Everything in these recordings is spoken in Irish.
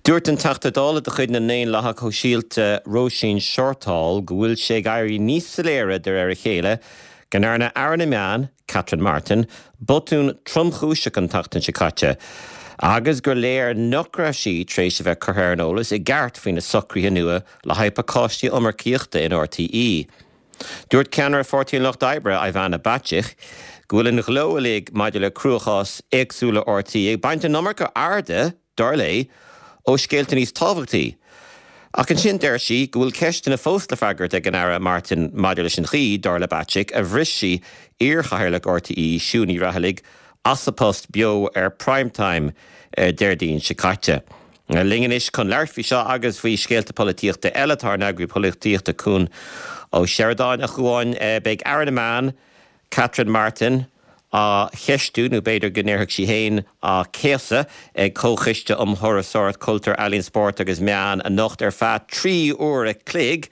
Dúirt an Teachta Dála de chuid na nDaonlathach Sóisialta Róisín Shortall go bhfuil sé ag éirí níos soiléire de réir a chéile go ndearna Aire na Meán, Catherine Martin, botún tromchúiseach an tseachtain seo caite agus gur léir nach raibh sí tar éis a bheith curtha ar an eolas i gceart faoi na socruithe nua le haghaidh pacáistí iomarcaíochta in RTÉ. Dúirt ceannaire Pháirtí an Lucht Oibre, Ivana Bacik, go bhfuil an ghleo uilig maidir le cruachás éagsúla RTÉ ag baint an iomarca airde, dar léi, ó scéalta níos tábhachtaí. Ach ansin deir sí go bhfuil ceisteanna fós le freagairt ag an Aire Martin maidir leis an chaoi, dar le Bacik, a bhris sí iarchathaoirleach RTÉ, Siún Ní Raghallaigh, as a post beo ar Prime Time Déardaoin seo caite. Linn anois chun labhairt faoi seo agus faoi scéalta polaitíochta eile tá ár n-eagraí polaitíochta Cuan Ó Seireadáin. A Chuáin, beidh Aire na Meán, Catherine Martin, á cheistiú, nó b'fhéidir go ndéarfadh sí féin á céasadh, ag Comhchoiste um Thurasóireacht, Cultúr, Ealaíon, Spórt agus Meán anocht ar feadh 3 uair a chloig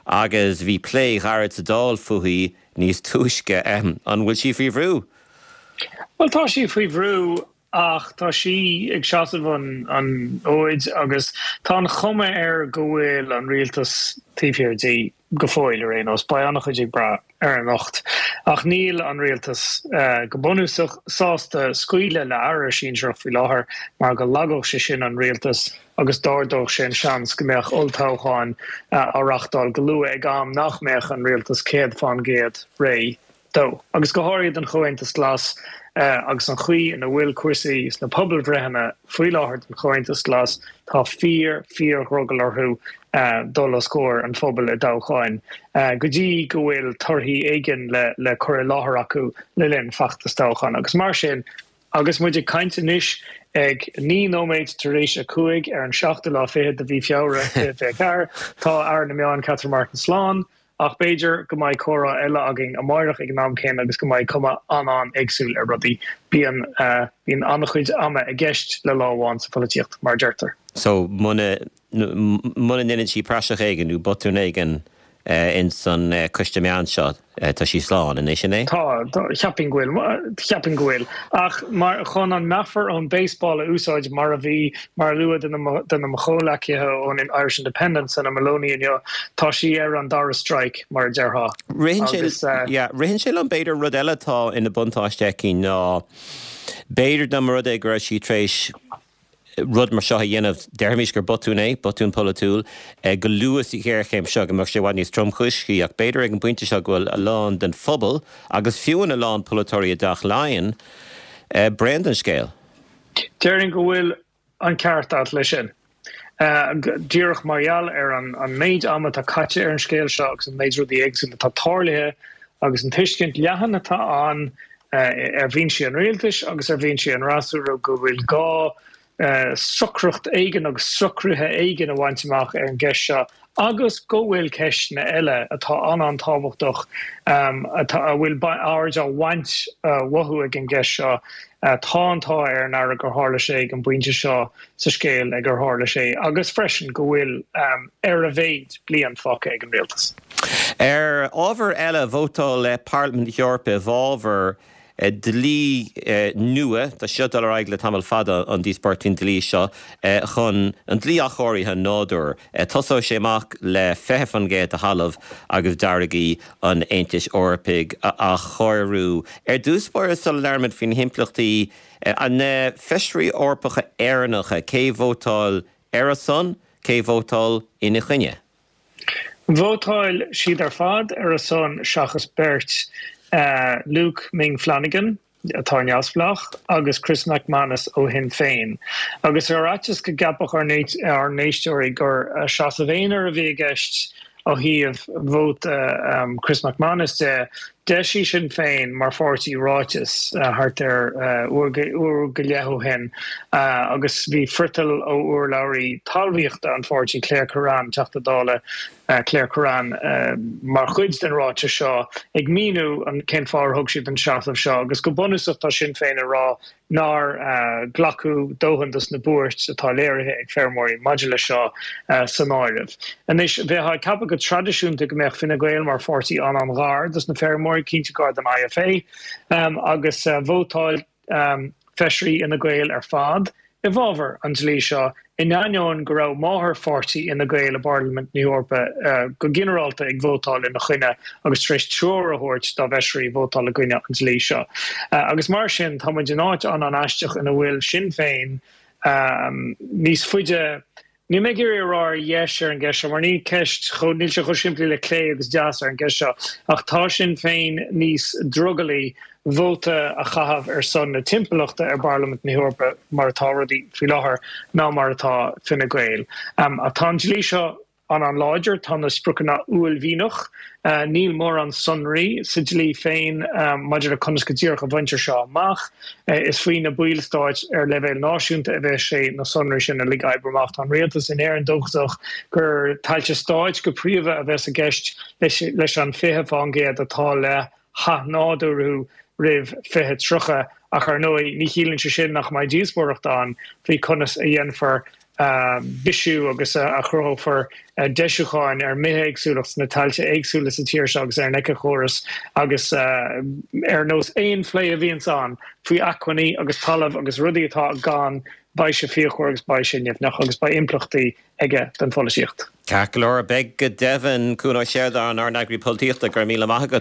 agus bhí plé ghairid sa Dáil fúithi níos túisce. An bhfuil sí faoi bhrú? Bhuel, tá sí faoi bhrú ach tá sí ag seasamh an fhóid agus tá an chuma air go bhfuil an rialtas taobh thiar di go fóill ar aon nós. Beidh an-chuid ag brath ar anocht. Ach níl an rialtas, go bunúsach, sásta scaoileadh le aire sinsearach faoi láthair mar go lagódh sé sin an rialtas agus d'ardódh sé an seans go mbeadh olltoghcháin á reáchtáil go luath ag am nach mbeadh an rialtas 100% réidh dó, agus go háirithe don Chomhaontas Glas agus an chaoi ina bhfuil cúrsaí sna pobalbhreitheanna faoi láthair don Chomhaontas Glas, tá fíor, fíor-dhrogall orthu dul os comhair an phobail i dtoghcháin go dtí go bhfuil torthaí éigin le cur i láthair acu le linn feachtas toghcháin. Agus mar sin, agus muid ag caint anois ag 9 nóiméad tar éis a 5 ar an seachtú lá fichead de mhí Feabhra 2024, tá Aire na Meán Catherine Martin slán. Ach b'fhéidir go mbeidh comhrá eile againn amáireach ag an am céanna agus go mbeidh cuma an-an-éagsúil ar rudaí. Bíonn, bíonn an-chuid ama i gceist le lá amháin sa pholaitíocht, mar a deirtear. So, muna, muna ndeineann sí praiseach éigin nó botún éigin ins an coiste meán seo, tá sí slán, an é sin é? Tá, cheapfainn go bhfuil, cheapfainn go bhfuil. Ach mar, chun an meafar ón baseball a úsáid, mar a bhí, mar a luadh duine de mo chomhleacaithe ón Irish Independent, Senan Moloney inniu, tá sí ar an dara strike, mar a déarfá. Ritheann sé, yeah, ritheann sé liom b'fhéidir rud eile atá ina buntáiste aici ná b'fhéidir dá mba rud é go raibh sí tar éis rud mar seo a dhéanamh, déarfaimis gur botún é, botún polaitiúil, go luath sa ghéarchéim seo go mbeadh sé i bhfad níos tromchúisí ach b'fhéidir ag an bpointe seo go bhfuil a lán den phobal agus fiú a lán polaiteoirí i dTeach Laighean bréan den scéal. Déarfainn go bhfuil an ceart agat leis sin. Díreach mar gheall ar an méid ama atá caite ar an scéal seo agus an méid rudaí éagsúla atá tarlaithe agus an tuiscint leathan atá ann ar bhinsí an rialtais agus ar bhinsí an fhreasúra go bhfuil gá socracht éigin agus socruithe éigin a bhaint amach ar an gceist seo agus go bhfuil ceisteanna eile atá an-an-tábhachtach atá, a bhfuil aird á bhaint uathu ag an gceist seo. Tá an t-ádh ar an Aire gur tharla sé ag an bpointe seo sa scéal ag ar tharla sé agus freisin go bhfuil, ar a mhéid, bliain fágtha ag an rialtas. Ar ábhar eile, vótáil Parlaimint na hEorpa i bhfabhar dlí nua, tá sé seo ag dul ar aghaidh le tamall fada, an díospóireacht faoin dlí seo, chun an dlí athchóirithe nádúir. Tosóidh sé amach le 20% de thalamh agus d'fharraigí an Aontais Eorpaigh a athchóiriú. Ar dtús báire, sula labhraímid faoi na himpleachtaí, na Feisirí Eorpacha Éireannacha, cé vótáil ar a son, cé vótáil ina choinne? Vótáil siad ar fad ar a son seachas beirt, Luke Ming Flanagan, atá neamhspleách, agus Chris MacManus ó Shinn Féin. Agus ar fhaitíos go gceapfadh ár n-éisteoirí gur seasamh aonair a bhí i gceist ó thaobh vóta Chris MacManus de, d'eisigh Sinn Féin mar pháirtí ráiteas thart ar uair go leith ó shin agus bhí friotal ó urlabhraí talmhaíochta an pháirtí, Claire Kerrane, Teachta Dála Claire Kerrane, mar chuid den ráiteas seo ag míniú cén fáth ar thug siad an seasamh seo agus go bunúsach tá Sinn Féin ag rá nár glacadh dóthain dos na buairt atá léirithe ag feirmeoirí maidir leis seo san áireamh. Anois, bheifeá ag ceapadh go traidisiúnta go mbeadh Fine Gael mar pháirtí an-an-ghar dos na feirmeoirí, cinnte gar don IFA, agus vótáil feisirí Fhine Gael ar fad. i bhfabhar an dlí seo, in ainneoin go raibh máthairpháirtí Fhine Gael i bParlaimint na hEorpa go ginearálta ag vótáil ina choinne agus tar éis treoir a thabhairt dá bhfeisirí vótáil i gcoinne an dlí seo. Agus mar sin, tá muid in áit an-an-aisteach ina bhfuil Sinn Féin níos faide Níl mé ag iarraidh a rá ar dheis ar an gceist seo, mar ní ceist chomh, níl sé chomh simplí le clé agus deas ar an gceist seo, ach tá Sinn Féin níos drogallaí vóta a chaitheamh ar son na timpeallachta i bParlaimint na hEorpa mar atá rudaí faoi láthair ná mar atá Fine Gael. Ach tá an dlí seo an-an-láidir, tá na spriocanna uaillmhianach. Níl mórán sonraí sa dlí féin maidir le conas go díreach a bhaintear seo amach. Is faoi na ballstáit ar leibhéal náisiúnta a bheas sé na sonraí sin uilig a oibriú amach. Tá an rialtas in Éirinn dóchasach gur tailte stáit go príomha a bheas i gceist leis an 20% atá le hathnádúrú roimh 2030 ach ar ndóigh ní chiallaíonn sé sin nach mbeidh díospóireacht ann faoi conas a dhéanfar bisiú agus a chruthófar deisiúcháin ar an mbithéagsúlacht sna tailte éagsúla sa tír seo agus ar an éiceachóras agus ar nós aon phlé a bhíonns ann faoi acmhainní agus talamh agus rudaí atá gann, beidh sé fíochmhar agus beidh sé nimhneach agus beidh impleachtaí aige don pholaitíocht. Ceart go leor, beidh go deimhin. Cuan Ó Seireadáin, ár n-eagraí polaitíochta, go raibh míle maith agat.